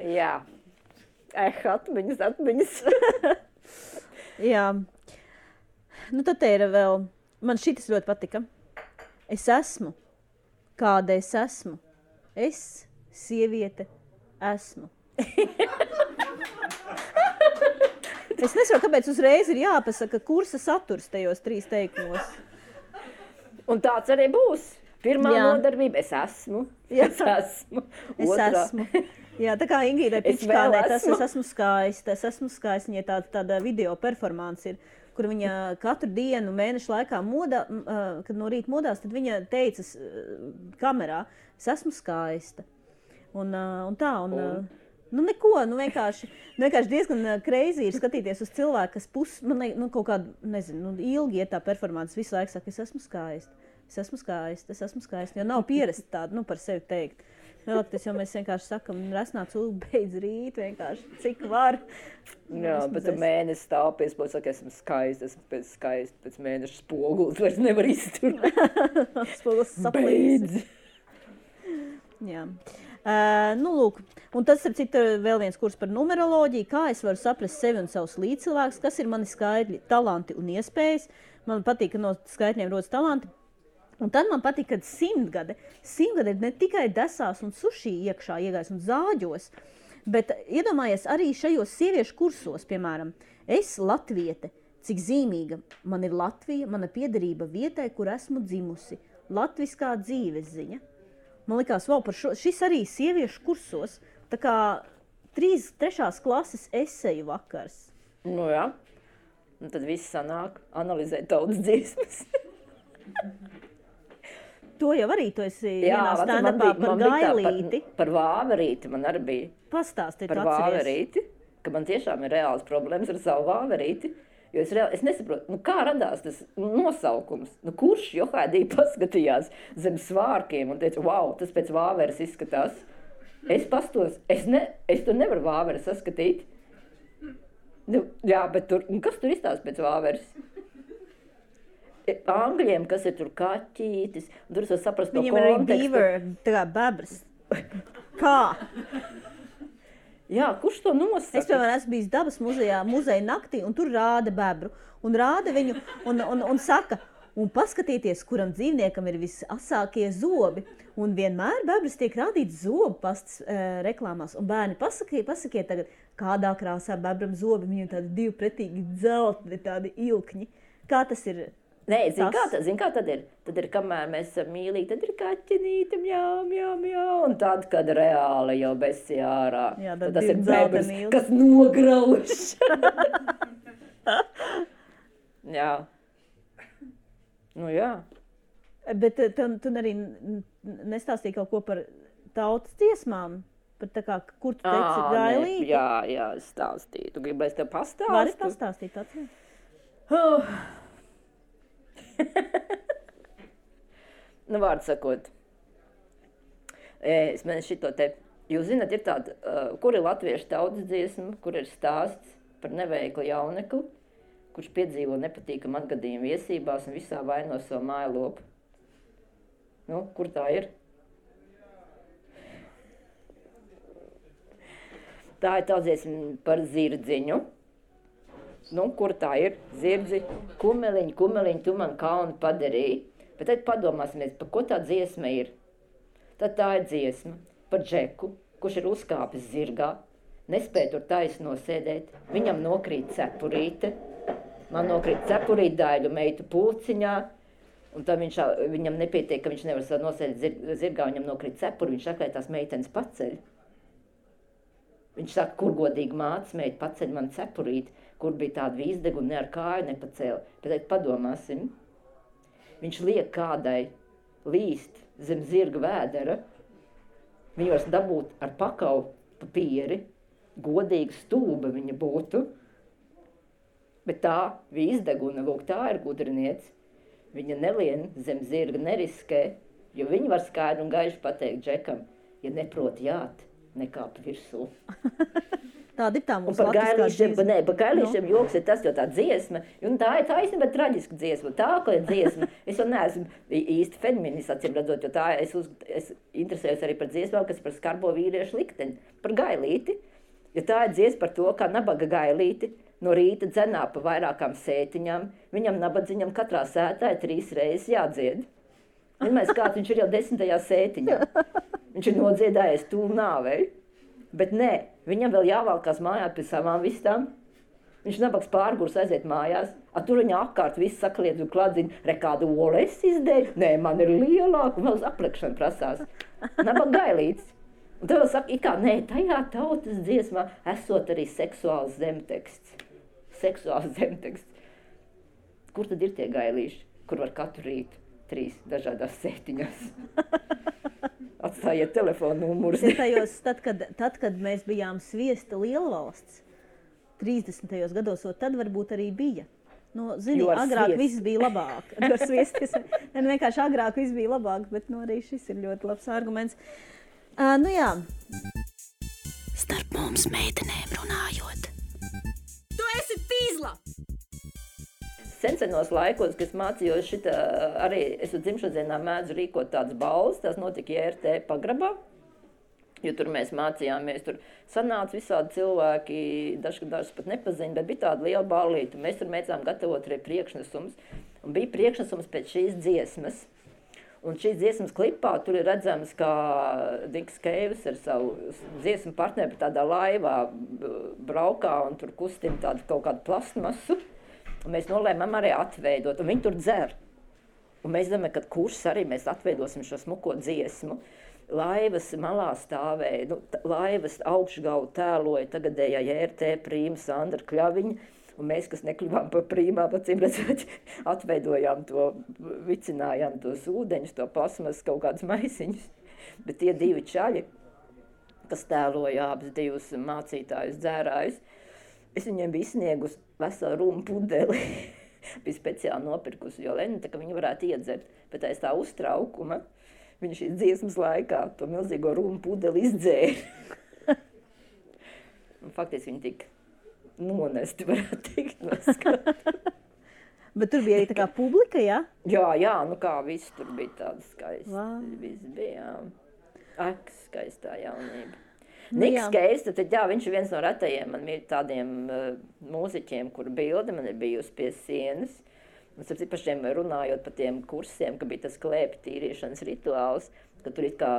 Jā. Atmiņas. Jā. Nu, tad te ir vēl, man šitas ļoti patika. Es esmu, kāda es esmu. Es, sieviete, esmu. Es nesaprotu, kāpēc uzreiz ir jāpasaka kursa saturs tajos 3 teikumos. Un tāds arī būs. Pirmā Jā. nodarbība, es esmu. Jā. Es esmu. Es Otrā. esmu. Jā, tā kā Ingīdai Es Pičkānei, vēl tas esmu. es esmu skaista. Es esmu skaista, viņai tāda video performance ir, kur viņa katru dienu mēnešu laikā modā, kad no rīta modās, tad viņa teica kamerā, es esmu skaista. Un tā, nu neko, vienkārši diezgan crazy ir skatīties uz cilvēku, kas kaut kādu, nezinu, ilgi iet tā performance, visu laiku saka, es esmu skaista. Es esmu skaista, jo nav pierasti tādu, par sevi teikt. Vēlākties, jo mēs vienkārši sakam, resnā cilvēku beidz rīt, vienkārši, cik var. Jā, bet tu mēnesi stāv pie spoguļa, saka, esmu skaista, pēc mēneša spogulis vairs nevar izturēt. Spogulis saplīs. Beidz! Jā. Lūk, un tas ir vēl viens kurs par numeroloģiju, kā es varu saprast sevi un savus līdzcilvēkus, kas ir mani skaitļi, talanti un iespējas. Man patīk, ka no skaitļiem rodas talanti. Un tad man patīk, ka simtgade ir ne tikai desās un suši iekšā iegājis un zāģos, bet iedomājies arī šajos sieviešu kursos, piemēram, es latviete, cik zīmīga man ir Latvija, mana piederība vietai, kur esmu dzimusi, latviskā dzīves ziņa. Man likās, wow, šis arī sieviešu kursos, tā kā 3. klases eseju vakars. Nu jā, un tad viss sanāk analizēt tautas dziesmas. To jau arī tu esi vienā stand-upā par Gailīti. Par Vāverīti man arī bija. Pastāstīt, par Vāverīti, ka man tiešām ir reāls problēmas ar savu Vāverīti. Jo es nesaprotu, kā radās tas nosaukums. Kurš Johaidī paskatījās zem svārkiem un teica, wow, tas pēc Vāveres izskatās. Es pastos, es to nevaru Vāveru saskatīt. Jā, bet kas tur izstāsta pēc Vāveres? Angļiem, kas ir tur kaķītis, un tur es var saprast to kontekstu. Viņam ir arī beaver, tā kā bebras. Kā? Jā, kurš to nosaka? Es, piemēram, esmu bijis dabas muzeja naktī, un tur rāda bebru. Un rāda viņu, un saka, un paskatieties, kuram dzīvniekam ir visasākie zobi. Un vienmēr bebras tiek rādīts zobu pastas reklāmās. Un bērni, pasakiet tagad, kādā krāsā bebram zobi, viņiem tādi divi pretīgi dzeltni, tādi ilkņi. Kā tas ir? Nē, zin kā tad ir? Tad ir, kamēr mēs esam mīlīgi, tad ir kaķenīte, mjau, un tad, kad reāli jau besi ārā. Jā, tad tas ir bebras, kas nograuž. Jā. Nu jā. Bet tu arī nestāstīji kaut ko par tautas dziesmām? Par tā kā, kur tu teici Gailīti? Jā, es stāstīju. Tu gribi, lai es tev pastāstu? Vari pastāstīt tāds? Nu, vārdu sakot, es mēnešu šito te, jūs zināt, ir tāda, kur ir latviešu tautas dziesma, kur ir stāsts par neveiklu jaunekli, kurš piedzīvo nepatīkamu atgadījumu viesībās un visā vaino savu mājlopu. Nu, kur tā ir? Tā ir tā dziesma par zirdziņu. Nu, kur tā ir? Zirdzi, kumeliņ, tu man kaunu padarīji. Bet tad padomāsimies, par ko tā dziesma ir. Tad tā ir dziesma par Džeku, kurš ir uzkāpis zirgā, nespēja tur taisno sēdēt, viņam nokrīt cepurīte, man nokrīt cepurīte daļu meitu pulciņā, un tad viņam nepietiek, ka viņš nevar nosēdēt zirgā, viņam nokrīt cepuri, viņš saka, lai tās meitenes paceļ. Viņš saka, kur godīgi mātes meita paceļ man cepurīti, kur bija tāda vīzdega un ne ar kāju nepacēla. Bet tad padomāsim, viņš liek kādai līst zem zirga vēdera, viņu var dabūt ar pakau papīri, godīga stūba viņa būtu, bet tā vīzdeguna, lūk, tā ir gudriniece, viņa nelien zem zirga neriskē, jo viņa var skaidri un gaiši pateikt Džekam, ja neprot jāt, nekāp virsū. Tāda ir tā mūsu latviskā dziesma. Par gailīšiem joks ir tas, jo tā dziesma, un tā ir taisnība traģiska dziesma. Tā, ka ir dziesma, es jau neesmu īsti feminists, acīm redzot, jo tā es interesējos arī par dziesmām, kas par skarbo vīriešu likteni, par gailīti. Jo tā ir dziesma par to, kā nabaga gailīti no rīta dzenā pa vairākām sētiņām, viņam nabadziņam katrā sētā ir 3 reizes jādzied. Vienmēr kāds viņš ir jau 10. sētiņā. Viņš ir nodziedājies tūl nāvei. Bet nē, viņam vēl jāvalkās mājā pie savām vistām. Viņš nabaks pārgurs aiziet mājās, tur viņa apkārt viss sakliedz un kladziņ, kādu olu es izdēļu, nē, man ir lielāka, un vēl uz aplikšanu prasās. Nabak gailīts. Un tev saka, it kā, nē, tajā tautas dziesmā esot arī seksuāls zemteksts. Seksuāls zemteksts. Kur tad ir tie gailīši, kur var katru rītu 3 dažādās sētiņās? Atstājiet telefonu numurus. Tad, kad mēs bijām Sviesta lielvalsts, 30. gados, tad varbūt arī bija. Nu, zini, agrāk viss bija labāk. Vienkārši agrāk viss bija labāk, bet arī šis ir ļoti labs arguments. Nu jā. Starp mums meitenēm runājot. Tu esi pīzla! Sensenos laikos, kad mācījos šitā, arī es dzimšanas dienā mēdzu rīkot tādas balvas, tās notika JRT pagrabā, jo tur mēs mācījāmies, tur sanāca visādi cilvēki, dažs pat nepaziņa, bet bija tāda liela ballīta, mēs tur mēdzām gatavot arī priekšnesums, un bija priekšnesums pēc šīs dziesmas, un šīs dziesmas klipā tur ir redzams, kā Niks Keivis ar savu dziesmu partneri tādā laivā braukā un tur kustina tādu kaut kādu plastmasu. Un mēs nolēmām arī atveidot, un viņi tur dzer. Un mēs domājam, ka kurs arī mēs atveidosim šo smuko dziesmu. Laivas malā stāvēja, laivas augšgalu tēloja tagadējā JRT prīma Sandra Kļaviņa, un mēs, kas nekļuvām par prīmām, acīm redzot, atveidojām to, vicinājām tos ūdeņus, to plasmas kaut kādus maisiņus. Bet tie 2 čaļi, kas tēloja abas 2 mācītājus dzērājus, es viņiem biju izsniegusi veselu rumu pudeli. Bija speciāli nopirkusi Joleni, tā ka viņi varētu iedzert. Bet aiz tā uztraukuma viņi šīs dziesmas laikā to milzīgo rumu pudeli izdzēra. Faktiski viņi tika nonesti, varētu teikt, no skatu. Bet tur bija arī tā kā publika, ja? Jā, nu kā viss tur bija tāda skaista. Wow. Viss bija, skaistā jaunība. Niks Keivis, tad jā, viņš ir viens no retajiem man ir tādiem mūziķiem, kuru bilde man ir bijusi pie sienas. Un pašiem runājot par tiem kursiem, ka bija tas klēpju tīrīšanas rituāls, ka tur it kā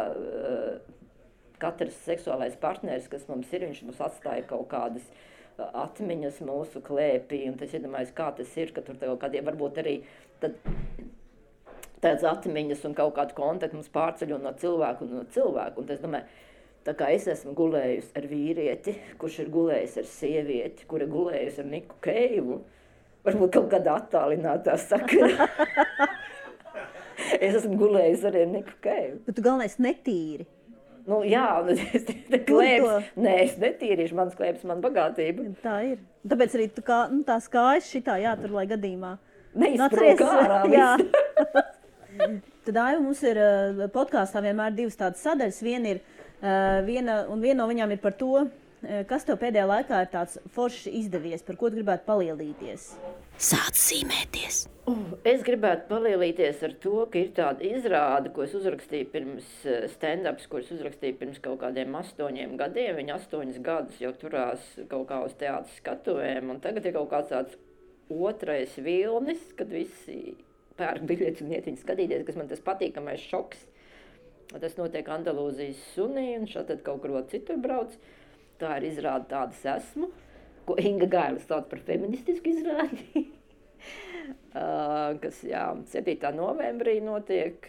katrs seksuālais partneris, kas mums ir, viņš mums atstāja kaut kādas atmiņas mūsu klēpī, un tas iedomājas, kā tas ir, ka tur kaut kādiem varbūt arī tāds atmiņas un kaut kādu kontaktu mums pārceļo no cilvēku un no cilvēku. Un es domāju, tā kā es esmu gulējusi ar vīrieti, kurš ir gulējis ar sievieti, kura ir gulējusi ar Niku Keivu, varbūt kaut kādā attālinātā sakarā. Es esmu gulējusi arī ar Niku Keivu. Bet tu galvenais netīri. Nu jā, nē, es netīrīšu, mans klēps, man bagātība. Tā ir. Tāpēc arī tu kā, tās kājas šitā jātur, lai gadījumā. Neizsprūk ārā visu. Tad Aiva, mums ir podkāstā vienmēr 2 tādas sadaļas. Viena no viņām ir par to, kas tev pēdējā laikā ir tāds forši izdevies, par ko tu gribētu palielīties? Sāc zīmēties. Es gribētu palielīties ar to, ka ir tāda izrāde, ko es uzrakstīju pirms stand-ups, ko es uzrakstīju pirms kaut kādiem 8 gadiem. Viņi 8 gadus jau turās kaut kā uz teātras skatuvēm, un tagad ir kaut kāds tāds otrais vilnis, kad visi pērk biļetes un iet viņu skatīties, kas man tas patīkamais šoks. Tas notiek Andalūzijas sunī, un šādi kaut kur citur brauc. Tā ir izrāde Tādas esmu, ko Inga Gailis sauc par feministisku izrādi, kas 7. novembrī notiek,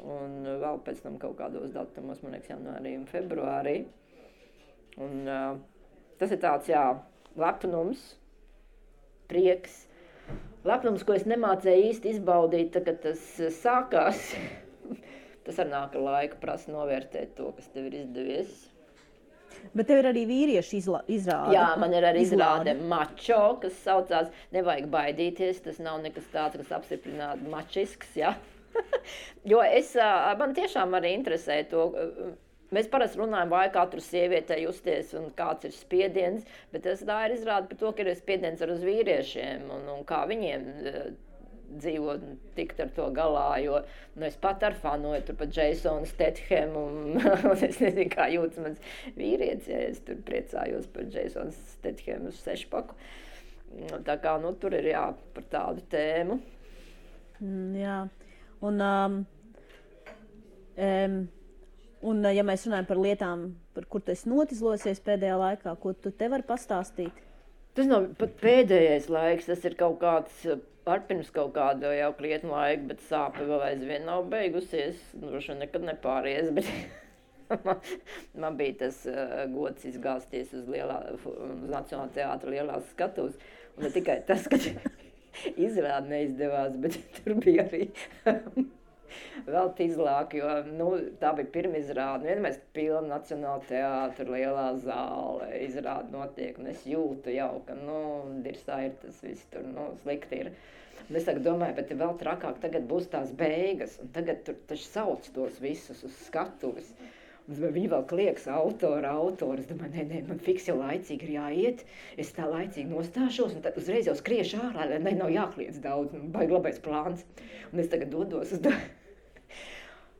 un vēl pēc tam kaut kādos datumos, man liekas, janvārī un februārī. Un, tas ir tāds, lepnums, prieks. Lepnums, ko es nemācēju īsti izbaudīt, kad tas sākās. Tas ar nāk ar laiku prasa novērtēt to, kas tev ir izdevies. Bet tev ir arī vīriešu izrāde. Jā, man ir arī izrāde mačo, kas saucās Nevajag baidīties. Tas nav nekas tāds, kas apstiprinātu mačisks, ja? Jo man tiešām arī interesē to. Mēs parasti runājam, vai katru sievietei justies un kāds ir spiediens, bet tā ir izrāde par to, ka ir spiediens ar uz vīriešiem un kā viņiem dzīvot, tikt ar to galā, jo es pat ar fanoju tur pat Jasonu Stethemu un es nezinu, kā jūtas mans vīrietis, ja es tur priecājos par Jasonu Stethemu uz 6-paku. Tā kā, tur ir par tādu tēmu. Jā, un ja mēs runājam par lietām, par kur tu esi notizlosies pēdējā laikā, ko tu te vari pastāstīt? Tas nav pat pēdējais laiks, tas ir kaut kāds pirms kaut kāda jau krietnu laika, bet sāpe vēl aizvien nav beigusies. Droši nekad nepāries, bet man bija tas gods izgāzties uz Nacionālā teātra lielās skatuves. Un ne tikai tas, ka izrāde neizdevās, bet tur bija arī vēl tīzlāk, jo tā bija pirmizrāde. Vienmēr pilna Nacionāla teātra lielā zāle, izrāde notiek, un es jūtu jau, ka, dirsā ir tas viss tur, slikti ir. Un es tagad domāju, bet vēl trakāk tagad būs tās beigas, un tagad tur taču sauc tos visus uz skatuves. Un viņi vēl klieks autori. Es domāju, nē, man fiks jau laicīgi ir jāiet, es tā laicīgi nostāšos, un tad uzreiz jau skriešu ārā, lai nav jākliedz daudz, baigi labais plāns. Un es tagad dodos uz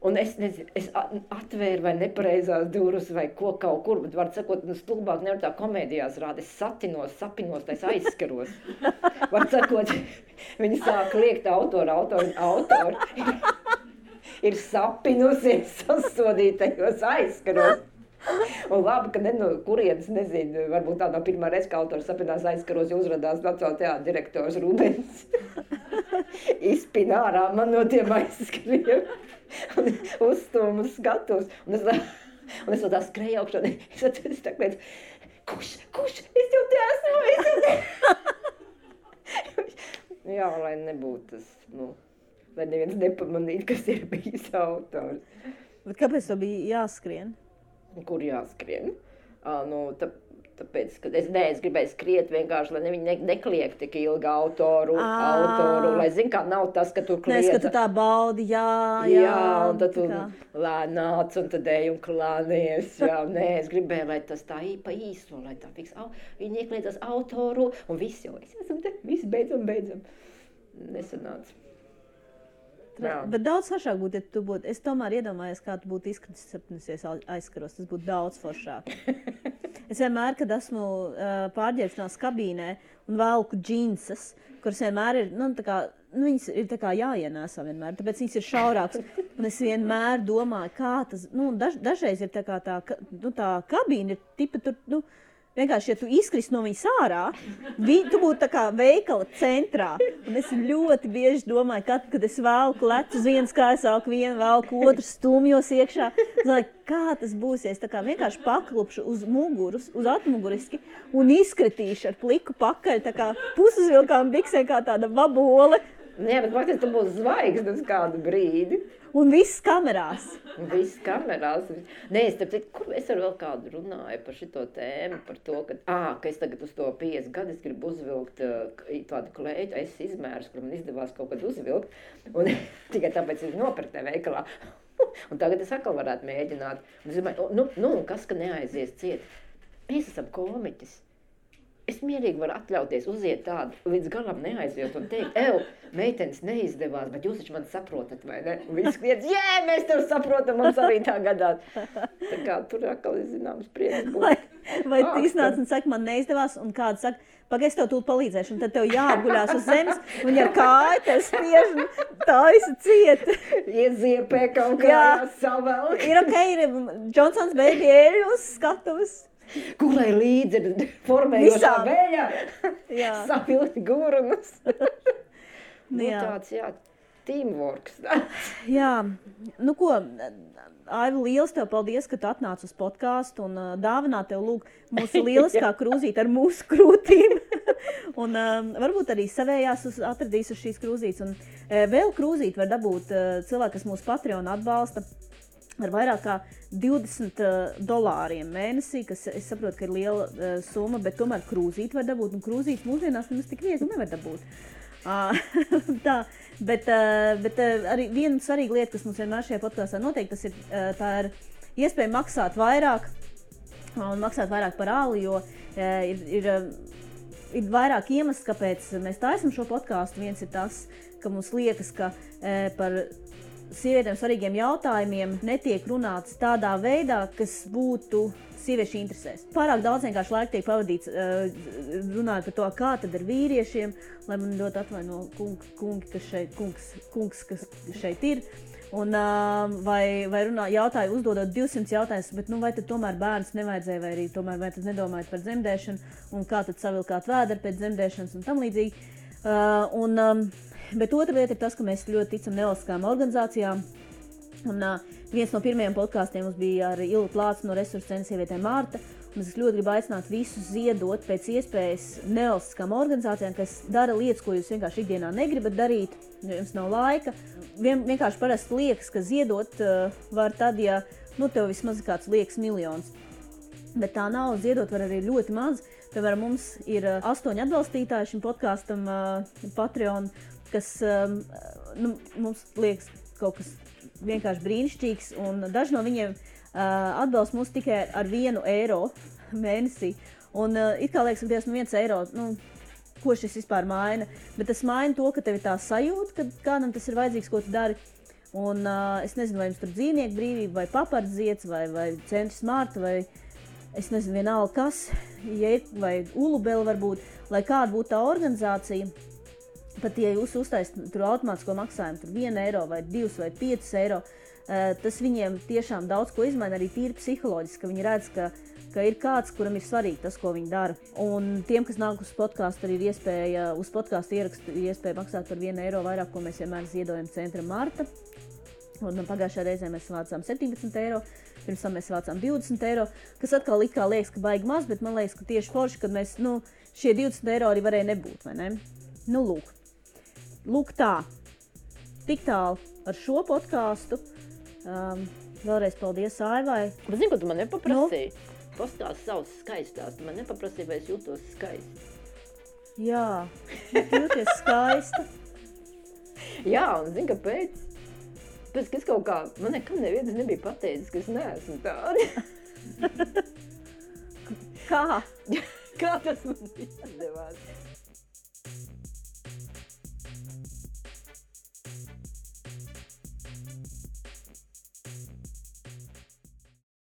un es nezinu, es atvēru vai nepareizās durus vai ko kaut kur, bet var sakot, stulbāk nevar tā komēdijās rāda, es sapinos, tais aizskaros. Var sakot, viņi sāk liekt autori. Ir sapinusies sasodītajos aizskaros. Un labi, ka kurienes, nezinu, varbūt tā nav pirmā reize, ka autors sapinās aizskaros, jo uzradās Nacionālā teātra direktors Rubens. Izpina ārā man no tiem aizskariem. Un uzstūmu skatos. Un es vēl tā skrēju augšā. Es tā kliedzu, kurš? Es jau te esmu. Jā, lai nebūtu tas, lai neviens nepamanītu, kas ir bijis autors. Bet kāpēc to bija jāskrien? Kur jāskrien? Tāpēc, ka es gribēju skriet vienkārši, lai viņi nekliek tik ilgi autoru, lai zin, kā nav tas, ka tu kliedza. Nes, ka tu tā baudi, jā, un tad tu lēnāc, un tad ej un klānies, es gribēju, lai tas tā pa īso, lai tā fiks, viņi iekliedzas autoru, un viss jau, es esam te, viss beidzam, nesanāca. Bet daudz foršāk būtu, ja tu būtu, es tomēr iedomājos, kā tu būtu izskatisies aizskaros, tas būtu daudz foršāk. Es vienmēr, kad esmu pārģērbšanās kabīnē un velku džinsas, kuras vienmēr ir, viņas ir tā kā jāienēsā vienmēr, tāpēc viņas ir šaurāks. Un es vienmēr domāju, kā tas, dažreiz ir tā kā tā kabīne ir tipa tur, vienkārši, ja tu izkrist no viņas ārā, tu būtu tā kā veikala centrā. Un es ļoti bieži domāju, kad es velku lecu uz vienas kājas, vienu velku otru stumjos iekšā. Es domāju, kā tas būs, ja es tā kā vienkārši paklupšu uz muguras, uz atmuguriski un izkritīšu ar pliku pakaļ, tā kā pusuzvilkām biksē kā tāda vabole. Jā, bet faktiski tu būs zvaigznes kādu brīdi. Un viss kamerās. Nē, es ar vēl kādu runāju par šito tēmu, par to, ka es tagad uz to 50 gadu gribu uzvilkt tādu kleitu, es izmērus, kur man izdevās kaut kad uzvilkt, un tikai tāpēc es nopirku veikalā. Un tagad es atkal varētu mēģināt. Un es domāju, kas, ka neaizies ciet? Mēs esam komiķis. Es mierīgi varu atļauties uziet tādu, līdz galam neaiziet un teikt, meitenes neizdevās, bet jūs taču mani saprotat, vai ne? Un viņi kliedz, mēs tev saprotam, mums arī tā gadās. Tā kā tur atkal ir zināms prieks būt. Vai tu iznāc un saka, man neizdevās, un kāds saka, pagaid, es tev tūlīt palīdzēšu, un tad tev jāapguļās uz zemes, un ar kāju tev spiež, tā esi ciet. Ieziepē kaut kā jāsavelk. Ir ir Johnsons Baby eļu uz skatuves. Kurai līdzi ir formējošā vēja, savilkt gurunus. Tāds, teamworks. Jā, ko, Aiva, liels tev paldies, ka tu atnāc uz podcastu un dāvināt tev lūk mūsu lieliskā krūzīte ar mūsu krūtīm. Un varbūt arī savējās atradīs uz šīs krūzītes. Un vēl krūzīti var dabūt cilvēki, kas mūsu Patreon atbalsta. Ar vairāk kā $20 mēnesī, kas es saprotu, ka ir liela summa, bet tomēr krūzīti var dabūt, un krūzītes mūsdienās nemaz tik viegli nevar dabūt. Tā, bet arī viena svarīga lieta, kas mums vienmēr šajā podkastā notiek, tas ir, tā ir iespēja maksāt vairāk, un maksāt vairāk par āli, jo ir vairāk iemesls, kāpēc mēs taisam šo podcastu. Viens ir tas, ka mums liekas, ka par sievietēm svarīgiem jautājumiem netiek runāts tādā veidā, kas būtu sieviešu interesēs. Pārāk daudz vienkārši laika tiek pavadīts runājot par to, kā tad ar vīriešiem, lai man ļoti atvaino kungs, kas šeit ir. Un, vai uzdodot 200 jautājumus, bet vai tad tomēr bērns nevajadzēja, vai arī tomēr vai tad nedomājat par dzemdēšanu, un kā tad savilkāt vēderi pēc dzemdēšanas un tam līdzīgi. Bet otra lieta ir tas, ka mēs ļoti ticam nevalstiskām organizācijām. Un, viens no pirmajiem podkāstiem mums bija ar Ilgu Plācu no Resursu centra sievietēm Marta. Es ļoti gribu aicināt visus ziedot pēc iespējas nevalstiskām organizācijām, kas dara lietas, ko jūs vienkārši ikdienā negribat darīt, jo jums nav laika. Vienkārši parasti liekas, ka ziedot var tad, ja tev vismaz kāds liekas miljons. Bet tā nav, ziedot var arī ļoti maz. Piemēram, mums ir 8 atbalstītāji šim podkāstam Patreon, kas mums liekas kaut kas vienkārši brīnišķīgs, un daži no viņiem atbalsta mūs tikai ar 1 eiro mēnesī. Un it kā liekas, ka Dievs, 1 eiro, ko šis vispār maina, bet tas maina to, ka tev ir tā sajūta, ka kādam tas ir vajadzīgs, ko tu dari. Un es nezinu, vai jums tur dzīvnieku brīvība, vai papardziets, vai centrs Marta, vai es nezinu, vienalga kas, vai Ulubela varbūt, lai kāda būtu tā organizācija. Pat ja jūs uztaisat tur automātisko maksājumu, tur 1 eiro vai 2 vai 5 eiro, tas viņiem tiešām daudz ko izmaina, arī tīri psiholoģiski, ka viņi redz, ka ir kāds, kuram ir svarīgi tas, ko viņi dara. Un tiem, kas nāk uz podkāstu, arī ir iespēja, uz podkāstu ierakstu iespēja maksāt par 1 eiro vairāk, ko mēs vienmēr ziedojam centram Marta. Un pagājušajā reizē mēs vācām 17 eiro, pirms tam mēs vācām 20 eiro, kas atkal it kā liekas, ka baigi maz, bet man liekas, ka tieši forši, kad mēs, šie 20 eiro arī varēja nebūt, vai ne? Lūk tā. Tik tālu ar šo podkāstu. Vēlreiz paldies Aivai. Bet zini, ko tu man nepaprasīji? Pastāsti savus skaistās. Tu man nepaprasīji, vai es jūtos skaisti. Jā, jūties skaista. Jā, un zini, kāpēc? Pēc, ka es kaut kā, man nekam neviens nebija pateicis, ka es neesmu tāda. Kā? Kā tas man izdevās?